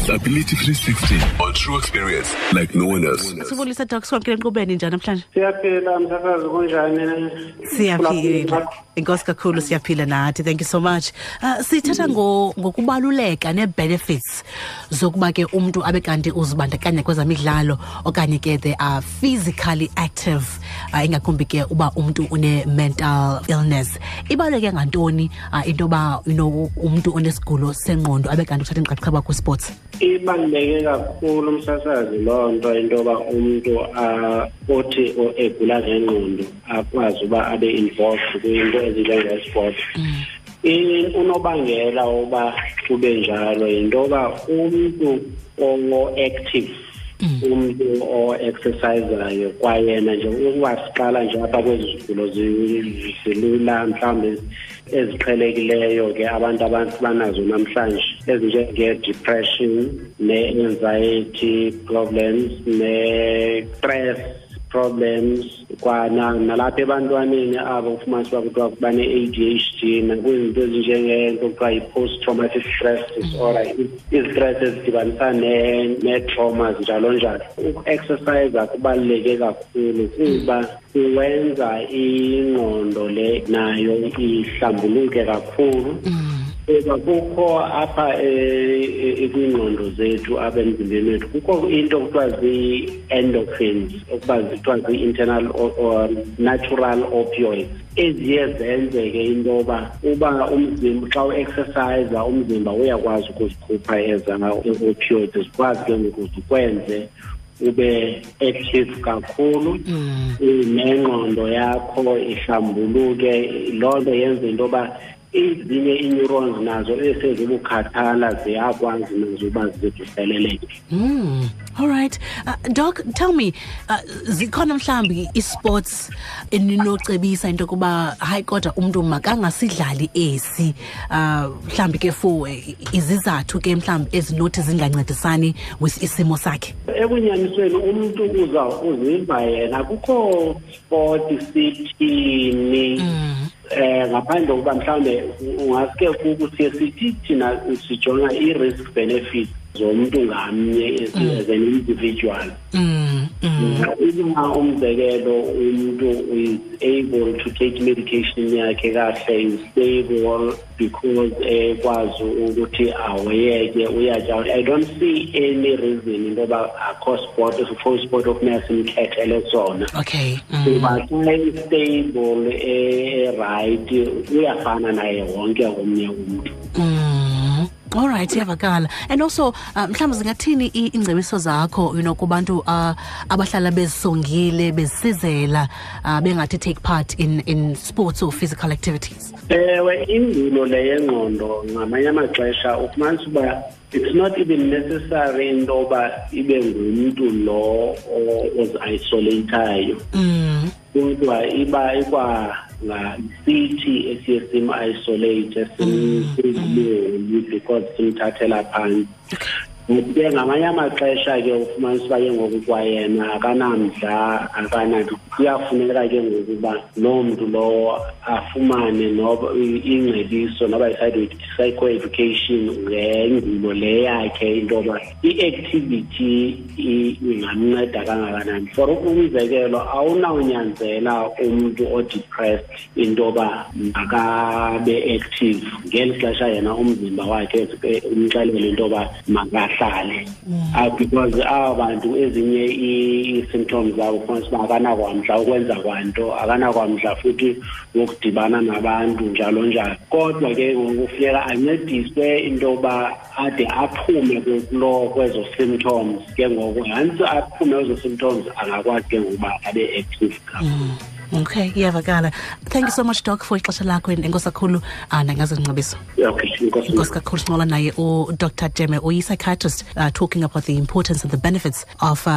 Disability 360 on true experience like no one else. Sibulisa Doc, sikwamkele enkqubeni, njani namhlanje? Siyaphila msakazi, kunjani? Siyaphila. Inkosi kakhulu, siyaphila nathi. Thank you so much. Sithetha ngokubaluleka nee-benefits zokuba ke umntu abe kanti uzibandakanya kwezamidlalo okanye ke they are physically active, ingakumbi ke uba umntu une-mental illness. Ibaluleke ngantoni into yoba umntu onesigulo sengqondo abe kanti uthatha inxaxheba kwi-sports? Ibaluleke kakhulu umsasazi loo nto, into yoba umntu othi egula ngengqondo akwazi uba abe involved kwinto ezinjenge-sport. Unobangela woba kube njalo yinto yoba umntu o-active, umntu o-exercisayo kwayena nje, ukuba siqala nje apha kwezi zigulo zilula mhlawumbi eziqhelekileyo ke abantu banazo namhlanje, ezinjenge-depression ne-anxiety problems ne-stress problems, kwana nalapha ebantwaneni abo ufumanisa uba kuthiwa bane-ADHD, nakwizinto ezinjengento kuthiwa yi-post traumatic stress disorder, izi-stress ezidibanisa nee-traumas njalo njalo. Uku-exercise kubaluleke kakhulu kuba kuwenza ingqondo le nayo ihlambuluke kakhulu, kuba kukho apha kwiingqondo zethu, apha emzimbeni wethu, kukho into kuthiwa zii-endorphins, okuba kuthiwa zii-internal or natural opioids, eziye zenzeke into yoba uba umzimba xa u-exercise umzimba uyakwazi ukuzikhupha eza opioids, zikwazi ke ngoku zikwenze ube active kakhulu, nengqondo yakho ihlambuluke. Loo nto yenza into yoba ezinye ii-neurons nazo esezibukhathala ziyakwazi nazo uba zivuseleleke. All right. Doc, tell me, zikhona mhlawumbi i-sports eninocebisa into yokuba hayi kodwa umntu makangasidlali esi, mhlawumbi ke for izizathu ke mhlawumbi ezinothi zingancedisani with isimo sakhe? Ekunyanisweni umntu uza uziva yena kukho sport sithini, ngaphandle kokuba mhlawumbe ungaske kuthi sithi thina sijonga i-risk benefit zomntu ngamnye as an individual. Uma umzekelo umntu is able to take medication yakhe kahle, is stable because ekwazi ukuthi awuyeke uyatya, I don't see any reason into yoba akho sport, akho sport okufuneka simkhethele sona, kuba xa i-stable, e-right, uyafana naye wonke omnye umntu. All right, iyavakala. And also mhlawumbi zingathini iingcebiso zakho kubantu abahlala bezisongile, bezisizela, bengathi take part in sports or physical activities? Ewe, ingulo le yengqondo ngamanye amaxesha ufumanisa uba it's not even necessary into yoba ibe ngumntu lo ozi-isolatayo, kodwa iba ikwa sithi esiye sim-isolate, simsiboni because simthathela phantsi. But ke ngamanye amaxesha ke ufumanisa uba ke ngoku kwayena akanamdla, akananto. Kuyafuneka ke ngoku uba loo mntu lowo afumane noba ingcebiso noba i-psychoeducation ngengulo le yakhe, into yoba i-activity ingamnceda kangakanani. For umzekelo, awunawunyanzela umntu o-depressed into yoba makabe active ngeli xesha yena umzimba wakhe umxelele into yoba makahlale, because aba bantu ezinye ii-symptoms zabo ufumanisa uba akanakwamdla ukwenza kwanto, akanakwamdla futhi wokudibana nabantu njalo njalo. Kodwa ke ngoku kufuneka ancediswe into yoba ade aphume kulo kwezo symptoms. Ke ngoku once aphume kwezo symptoms, angakwazi ke ngokuba abe active kakhulu. Okay, iyavakala. Thank you so much, Doc, for ixesha lakho. Enkosi kakhulu nangazingcebiso. Okay, enkosi. Enkosi kakhulu. Sincokola naye uDr Jeme, uyi-psychiatrist, talking about the importance and the benefits of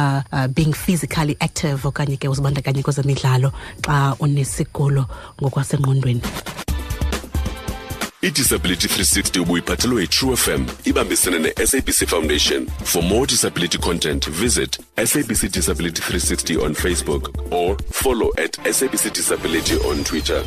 being physically active okanye ke uzibandakanye kwezemidlalo xa unesigulo ngokwasengqondweni. I-Disability 360 ubuyiphathelwe yi-True FM ibambisene ne-SABC Foundation. For more disability content, visit SABC Disability 360 on Facebook or follow at SABC Disability on Twitter.